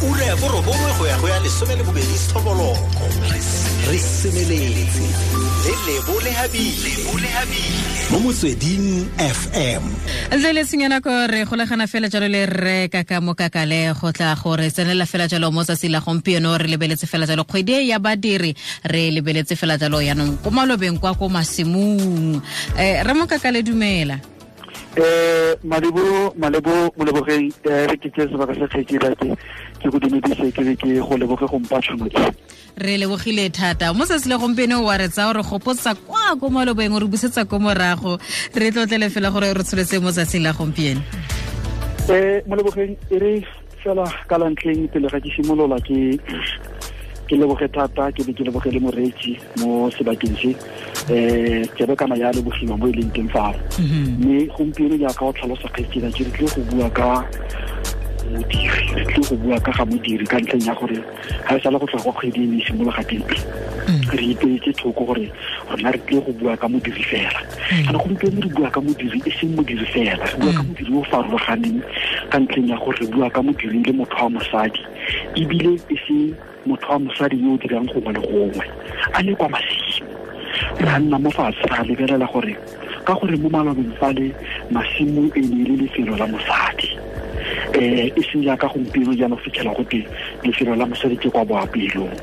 Ura ya borobongwe go ya go ya 12 sethoboloko. Re semeletse le Lebo Lehabile mo Motsweding FM. Ntle le tshenyana ko re golagana fela jalo le rre Kaka Mokakale go tla gore tsenela fela jalo mo tsatsi la gompieno. Re lebeletse fela jalo kgwedi e ya badiri, re lebeletse fela jalo yaanong ko malobeng kwa ko masimong. Rre Mokakale, dumela. Malebo molebogeng, re ke tse sebaka sa kgetse ba ke go dumedise, ke be ke go leboge go mpa tšhono e. Re lebogile thata mo tsatsi le gompieno wa re tsaya re gopotsa kwa ko malobeng, re busetsa ko morago, re tlotlele fela gore re tsholetse mo tsatsing la gompieno. Molebogeng, e re fela ka la ntlheng pele ga ke simolola ke leboge thata, ke be ke leboge le moreetsi mo sebakeng se. Tsebe kana ya lebogiwa mo e leng teng fao. Mme gompieno jaaka o tlhalosa kgaitsedi, ke re tlile go bua ka modiri, re tlile go bua ka ga modiri ka ntlheng ya gore ga e sale go tloga kwa kgwedi e ne e simologa teng, re ipeetse thoko gore rona re tlile go bua ka modiri fela. Kana gompieno re bua ka modiri e seng modiri fela, re bua ka modiri o farologaneng ka ntlheng ya gore re bua ka modiri le motho wa mosadi, ebile e se motho wa mosadi yo o dirang gongwe le gongwe, a le kwa masimo. Re nna mo fatshe ra lebelela gore ka gore mo malobeng fale masimo e ne e le lefelo la mosadi, e seng jaaka gompieno jaanong fitlhela gote lefelo la mosadi ke kwa boapelong.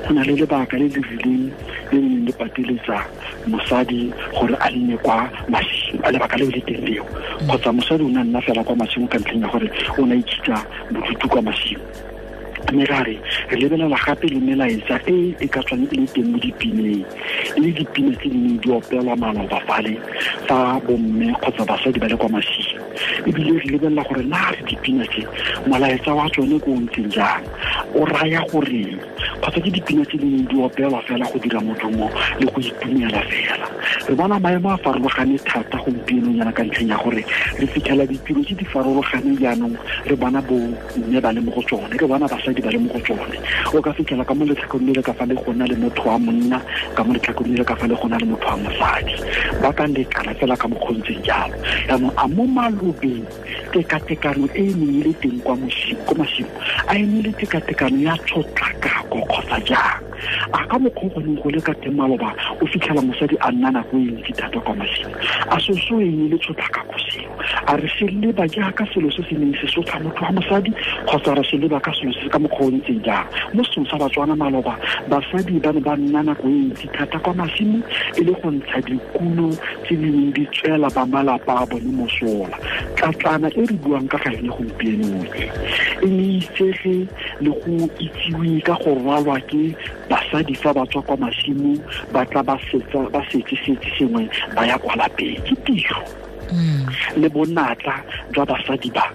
Go na le lebaka le le rileng le le neng le pateletsa mosadi gore a nne kwa masimo, a lebaka leo le teng leo, kgotsa mosadi o ne a nna fela kwa masimo ka ntlheng ya gore o ne a ikitsa bodutu kwa masimo. Mme ra re re lebelela gape le melaetsa e e ka tswang e le teng mo dipineng, e le dipina tse di neng di opelwa maloba fale fa bomme kgotsa basadi ba le kwa masimo. Ebile re lebelela gore na re dipina tse molaetsa wa tsone ko o ntseng jang, o raya goreng, kgotsa ke dipina tse di neng di opelwa fela go dira modumo le go itumela fela. Re bona maemo a farologane thata gompieno jaana ka ntlheng ya gore re fitlhela ditiro tse di farologaneng jaanong, re bona bo mme ba le mo go tsone, re bona basadi ba le mo go tsone. O ka fitlhela ka mo letlhakoreng le le ka fa le gona le motho wa monna, ka mo letlhakoreng le le ka fa le gona le motho wa mosadi, ba ka lekana fela ka mokgontseng jalo. Jaanong a mo malobeng tekatekano e e neng e le teng kwa masimo, a e ne le tekatekano ya tshotlakako kgotsa jang? A ka mokgwa go neng go le ka teng maloba o fitlhela mosadi a nna nako e ntsi thata kwa masimo, a soso e ne le tshotlakako seo? A re se leba jaaka selo se se neng se sotla motho wa mosadi, kgotsa re se leba ka selo se ka mokgwa o ntseng jang? Mo setsong sa Batswana maloba, basadi ba ne ba nna nako e ntsi thata kwa masimo e le go ntsha dikuno tse di neng di tswela ba malapa a bone mosola. Tlatlana e re buang ka ga yone gompieno e, e ne itsege le go itsiwe ka go rwalwa ke basadi fa ba tswa kwa masimo, ba tla ba setse sengwe ba ya kwa lapeng. Ke tiro le bonatla jwa basadi ba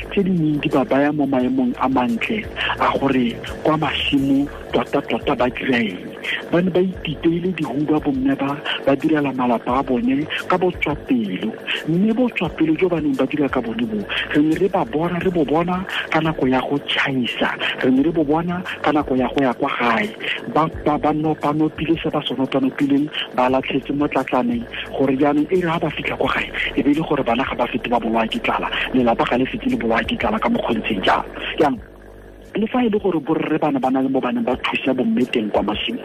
tse di neng di ba baya mo maemong a mantle a gore kwa masimo tota-tota ba dira eng. Ba ne ba ititeile dihuba bomme ba direla malapa a bone ka botswapelo, mme botswapelo jo ba neng ba dira ka bone bo re ne re ba bona, re bo bona ka nako ya go tšhaisa, re ne re bo bona ka nako ya go ya kwa gae, ba nopanopile se ba se nopanopileng, ba latlhetse mo tlatlaneng gore jaanong e re ha ba fitlha kwa gae e be e le gore bana ga ba fete ba bolawa ke tlala, lelapa ga le fete le bolawa ke tlala ka mokgontseng jalo. Jaanong le fa e le gore borre bana ba na le mo ba neng ba thusa bomme teng kwa masimo,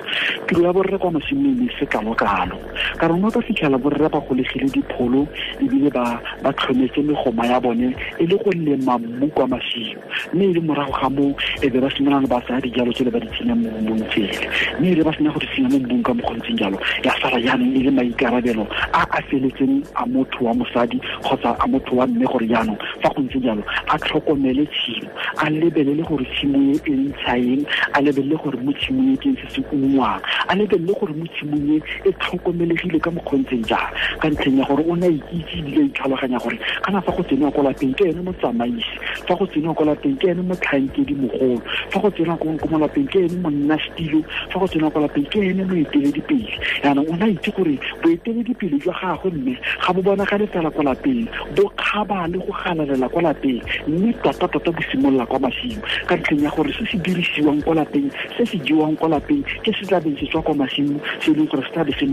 tiro ya borre kwa masimo e ne se kalo-kalo, ka rona ka fitlhela borre ba golegile dipholo ebile ba tlhometse megoma ya bone e le go lema mmu kwa masimo, mme e le morago ga moo e be ba simolola ba tsaya dijalo tsele ba di tsenya mo mmung tsele, mme e le ba sena go di tsenya mo mmung ka mokgontseng jalo, ya sala jaanong e le maikarabelo a a feletseng a motho wa mosadi kgotsa a motho wa mme gore jaanong fa go ntse jalo a tlhokomele tshimo, a lebelele gore tshimo e e ntsha eng, a lebelele gore mo tshimong e ke eng se se ungwang, a lebelele gore mo tshimong e e tlhokomelegile ka mokgontseng jang, ka ntlheng ya gore o ne a ikitse ebile a itlhaloganya gore kana fa go tsenwa kwa lapeng ke ene motsamaisi, fa go tsenwa kwa lapeng ke ene motlhankedi mogolo, fa go tsenwa ko mo lapeng ke ene monna setilo, fa go tsenwa kwa lapeng ke ene moeteledipele. Jaanong o ne a itse gore boeteledipele jwa gagwe mme ga bo bonagale fela kwa lapeng, bo kgaba le go galalela kwa lapeng, mme tota-tota bo simolola kwa masimo, ka ntlheng ya gore se se dirisiwang kwa lapeng, se se jewang kwa lapeng ke se tla beng se tswa kwa masimo, se e leng gore se tla be se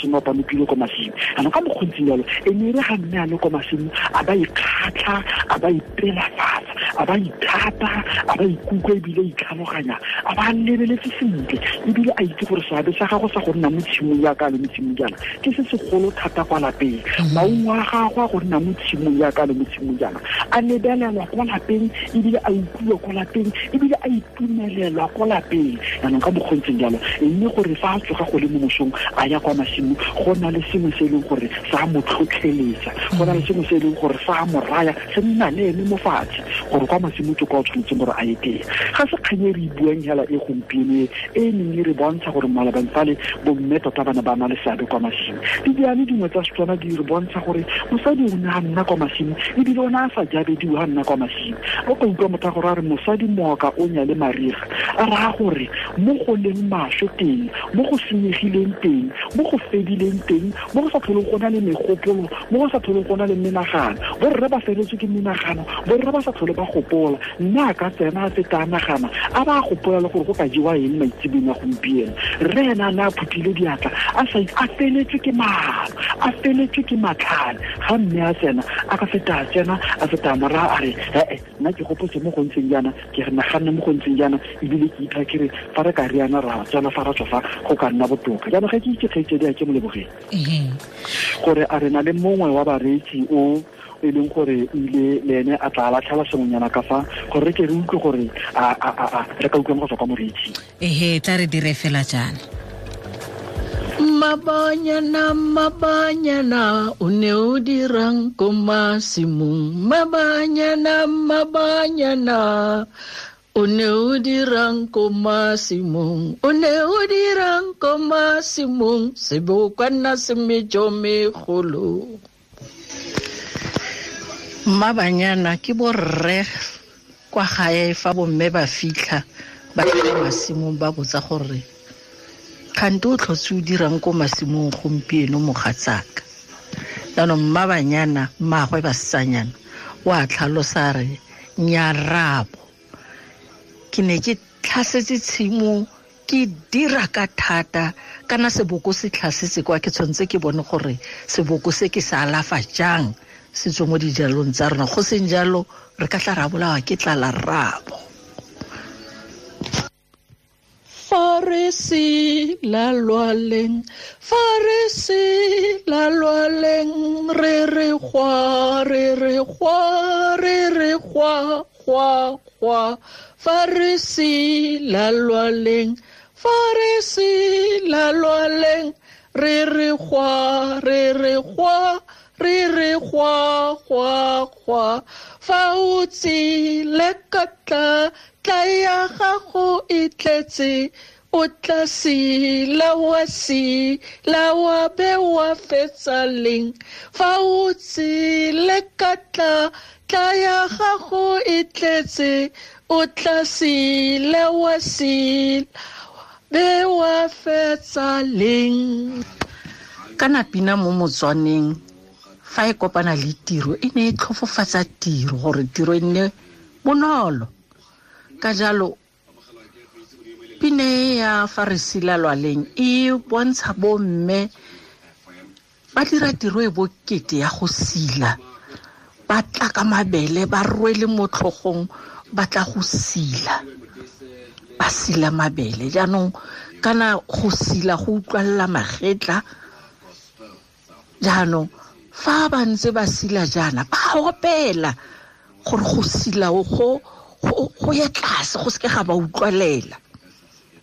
nopanopile kwa masimo. Jaanong ka mokgontseng jalo e ne e re ga mme a le kwa masimo a ba ikgatlha, a ba ipelafatsa, A ba ithata, a ba ikutlwa ebile itlhaloganya, a ba lebeletse sentle ebile a itse gore seabe sa gago sa go nna mo tshimong yaka le mo tshimong jaana ke se segolo thata kwa lapeng. Maungo a gagwe a go nna mo tshimong yaka le mo tshimong jaana a lebelelwa kwa lapeng ebile a utlwiwa kwa lapeng ebile a itumelelwa kwa lapeng. Jaanong ka mokgontseng jalo, mme gore fa a tsoga go le mo mosong a ya kwa masimo, go na le sengwe se e leng gore sa mo tlhotlheletsa, go na le sengwe se e leng gore sa mo raya se nna le ene mo fatshe gore kwa masimo ke kwa o tshwanetseng gore a ye teng. Ga se kgang e re e buang hela e gompieno e neng e re bontsha gore malabeng fale bomme tota ba ne ba na le seabe kwa masimo. Didiane dingwe tsa Setswana di re bontsha gore mosadi o ne a nna kwa masimo ebile o ne a sa jabediwe a nna kwa masimo. O ka utlwa motho a gore a re mosadi mooka o nyale mariga, a raya gore mo go leng maswe teng, mo go senyegileng teng, mo go fedileng teng, mo go sa tlholeng go na le megopolo, mo go sa tlholeng go na le menagano. Borre ba feletswe ke menagano, borre ba sa tlhole ba gopola. Mme a ka tsena a feta a nagana, a ba a gopola le gore go ka jewa eng maitsebeng a gompieno. Rre ena a ne a phuthile diatla, a sa a feletswe ke maano, a feletswe ke matlhale. Ga mme a tsena, a ka feta a tsena, a feta a moraya a re, ee, nna ke gopotse mo go ntseng jaana, ke re naganne mo go ntseng jaana, ebile ke itha ke re fa re ka riana ra tsena fa ra tswa fa go ka nna botoka. Jaanong ga ke itse kgaitsedi a ke mo lebogeng gore a re na le mongwe wa bareetsi o e leng gore o ile le ene a tla latlhela sengwenyana ka fa gore re ke re utlwe gore a re ka utlwang go tswa kwa moreetsing. Ehe, tla re dire fela jaana. Mabanyana, mabanyana, o ne o dirang ko masimong. Mabanyana, mabanyana, o ne o dirang ko masimong. O ne o dirang ko masimong, sebokwana se mejo megolo. Mabanyana ke borre kwa gae fa bomme ba fitlha ba ya masimong ba botsa gore kgante o tlhotse o dirang ko masimong gompieno mogatsaka. Jaanong mmabanyana mmaagwe basetsanyana o a tlhalosa re nyarabo, ke ne ke tlhasetse tshimo ke dira ka thata, kana seboko se tlhasetse kwa ke tshwanetse ke bone gore seboko se ke se alafa jang se tswe mo dijalong tsa rona, go seng jalo re ka tla ra bolawa ke tlala rrabo. Fa re se la lwaleng, fa re se la lwaleng, re re gwa, re re gwa, re re gwa, gwa, gwa. Fa re se la lwaleng, fa re se la lwaleng, re re gwa, re re gwa, re re gwa, gwa, gwa. Fa o tsile ka tla, tla ya gago e tletse, o tla sila wa sila wa be wa fetsa leng. Fa o tsile ka tla, tla ya gago e tletse, o tla sila wa sila be wa fetsa leng. Kana pina mo Motswaneng fa e kopana le tiro e ne e tlhofofatsa tiro gore tiro e nne bonolo. Ka jalo pine ya fa re sila lwaleng e bontsha bomme ba dira tiro e bokete ya go sila, ba tla ka mabele ba rwele mo tlhogong ba tla go sila, ba sila mabele. Jaanong kana go sila go utlwalela magetla. Jaanong fa ba ntse ba sila jaana ba opela gore go sila go ye tlase go seke ga ba utlwalela.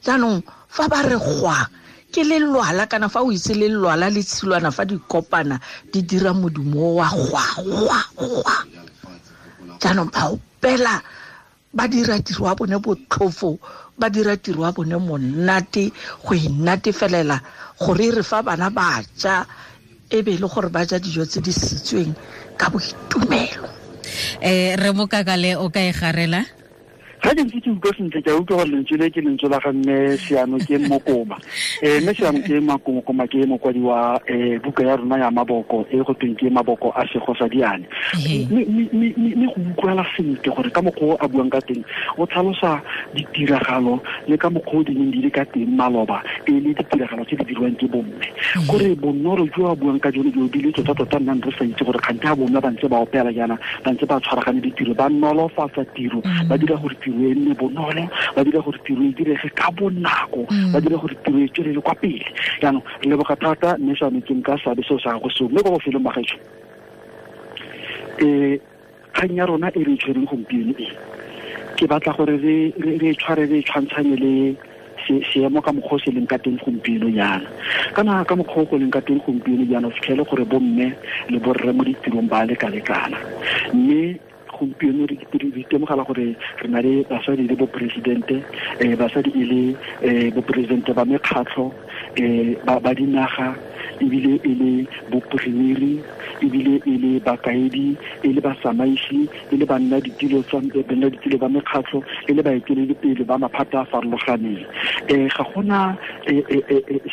Jaanong fa ba re gwa ke lelwala, kana fa o itse lelwala le tshilwana fa di kopana di dira modumo wa gwa gwa gwa. Jaanong ba opela ba dira tiro ya bone botlhofo, ba dira tiro ya bone monate go inatefelela gore re fa bana ba ja e be le gore ba ja dijo tse di sitsweng ka boitumelo. Re Mokakale o ka e garela? Ga ke ntse ke utlwa sentle, ke a utlwa gore lentswe le ke lentswe la ga mme Seano ke Mokoma. Mme Seano ke Mokoma ke mokwadi wa buka ya rona ya maboko e go tweng ke Maboko a Sego sa Diane. Mme go utlwala sentle gore ka mokgwa o a buang ka teng o tlhalosa ditiragalo le ka mokgwa o di neng di le ka teng maloba, e le ditiragalo tse di dirwang ke bomme. Kore bonolo jo a buang ka jone jo bile tota-tota nnang re sa itse gore kgante ga bomme ba ntse ba opela jaana, ba ntse ba tshwaragane ditiro, ba nolofatsa tiro, ba dira gore tiro e nne bonolo, ba dira gore tiro e direge ka bonako, ba dira gore tiro e tswelele kwa pele. Jaanong re leboga thata mme Seano ke nka seabe seo sa gago seo. Mme kwa bofelong ba gaetsho, kgang ya rona e re e tshwereng gompieno e, ke batla gore re e tshware re e tshwantshanye le seemo ka mokgwa o se leng ka teng gompieno jaana. Kana ka mokgwa o go leng ka teng gompieno jaana, o fitlhele gore bomme le borre mo ditirong ba leka-lekana. Mme gompieno re itemogela gore re na le basadi le boporesidente, basadi e le boporesidente ba mekgatlho, ba dinaga, ebile e le bopremiri, ebile e le bakaedi, e le batsamaisi, e le banna ditilo tsa banna ditilo ba mekgatlho, e le baeteledipele ba maphata a farologaneng. Ga gona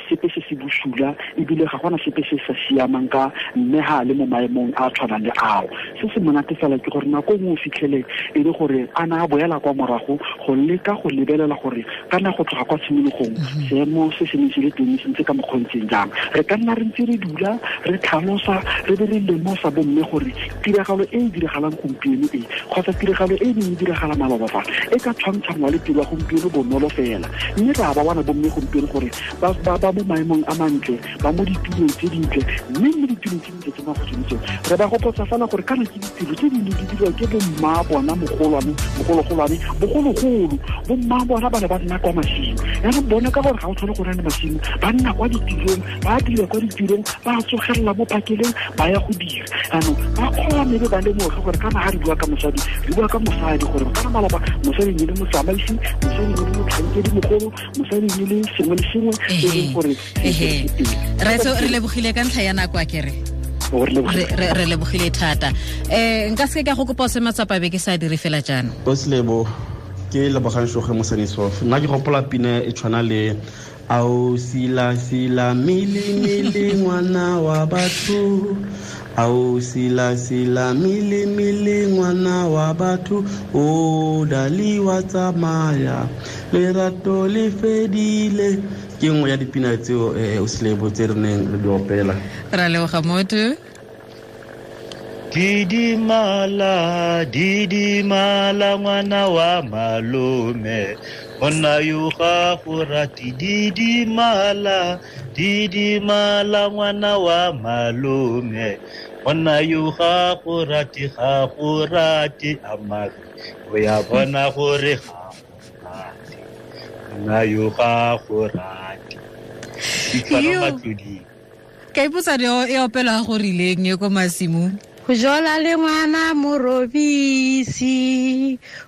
sepe se se bosula, ebile ga gona sepe se sa siamang ka mme ha le mo maemong a tshwanang le ao. Se se monate fela ke gore nako nngwe o fitlhele e le gore a na a boela kwa morago go leka go lebelela gore kana go tloga kwa tshimologong seemo se se neng se le teng se ntse ka mokgwa o ntseng jang. Re ka nna re ntse re dula re tlhalosa re be re lemosa bomme gore tiragalo e e diragalang gompieno e kgotsa tiragalo e e neng e diragala maloba fa e ka tshwantshangwa le tiro ya gompieno bonolo fela. Mme re a ba bona bomme gompieno gore ba mo maemong a mantle, ba mo ditulong tse dintle, mme mo ditulong tse dintle tse magodimo tseo re ba gopotsa fela gore kana ke ditiro tse di neng di dirwa ke bomma bona mogolwane, bogologolwane, bogologolo. Bomma bona ba ne ba nna kwa masimo. Jaanong bone ka gore ga o tlhole go nna le masimo, ba nna kwa ditirong, ba dira kwa ditirong, ba tsogelela mo phakeleng, ba ya go dira. Jaanong ba kgone be ba lemoge gore kana ga re bua ka mosadi, re bua ka mosadi gore kana maloba mosadi ne le motsamaisi, mosadi ne le motlhankedi mogolo, mosadi ne le sengwe le sengwe e leng gore se se teng. Raetso, re lebogile ka ntlha ya nako a kere. Re lebogile thata. Nka seke ka go kopa o se matsapa be ke sa dire fela jaana. Oslebo, ke lebogang Shoge Mosanisof. Nna ke gopola pina e tshwana le Ao sila sila mili mili ngwana wa batho, ao sila sila mili mili ngwana wa batho, o dali wa tsamaya lerato le fedile. Ke nngwe ya dipina tseo Oslebo tse re neng re di opela. Ra leboga motho. Didimala, didimala ngwana wa malome, monna yo ga go rate. Didimala, didimala ngwana wa malome, monna yo ga go rate, ga go rate amare, o ya bona gore ga go rate, monna yo ga go rate. Ditshwaro matlodi. Ka ipotsa e opelwa go rileng e ko masimong. Go jola le ngwana morobisi,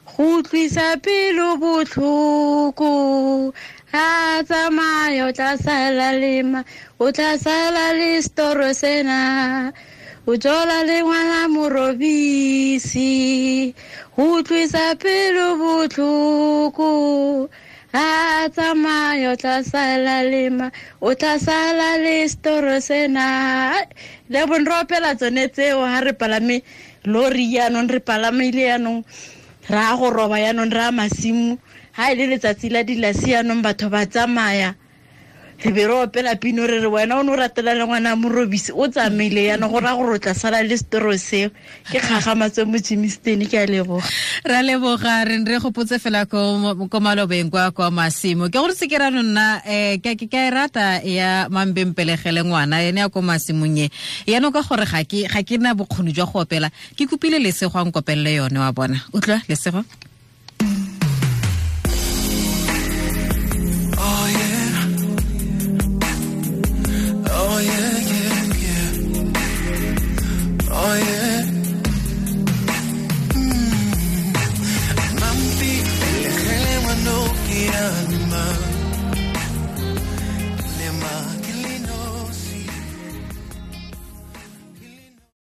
go utlwisa pelo botlhoko. Ha tsamaya o tla sala le ma, o tla sala le setoro sena. O jola le ngwana morobisi, go utlwisa pelo botlhoko. Ha tsamaya o tla sala le ma, o tla sala le setoro sena. Le bon re opela tsone tseo ha re palame lori jaanong, re palamile jaanong, re a go roba jaanong, re a masimo. Ha e le letsatsi la dilasi jaanong batho ba tsamaya, re be re opela pino re re wena o ne o ratela le ngwana morobisi o tsamaile jaanong, go raya gore o tla sala le setoro seo. Ke kgagamatso mo Germiston, ke a leboga. Ra leboga, re re gopotse fela ko malobeng kwa masimo. Ke gore se ke ra nna ke a e rata ya mambempelegele ngwana ene ya ko masimong e. Yaanong ka gore ga ke na bokgoni jwa go opela, ke kopile Lesego a nkopelele yone wa bona. Utlwa Lesego?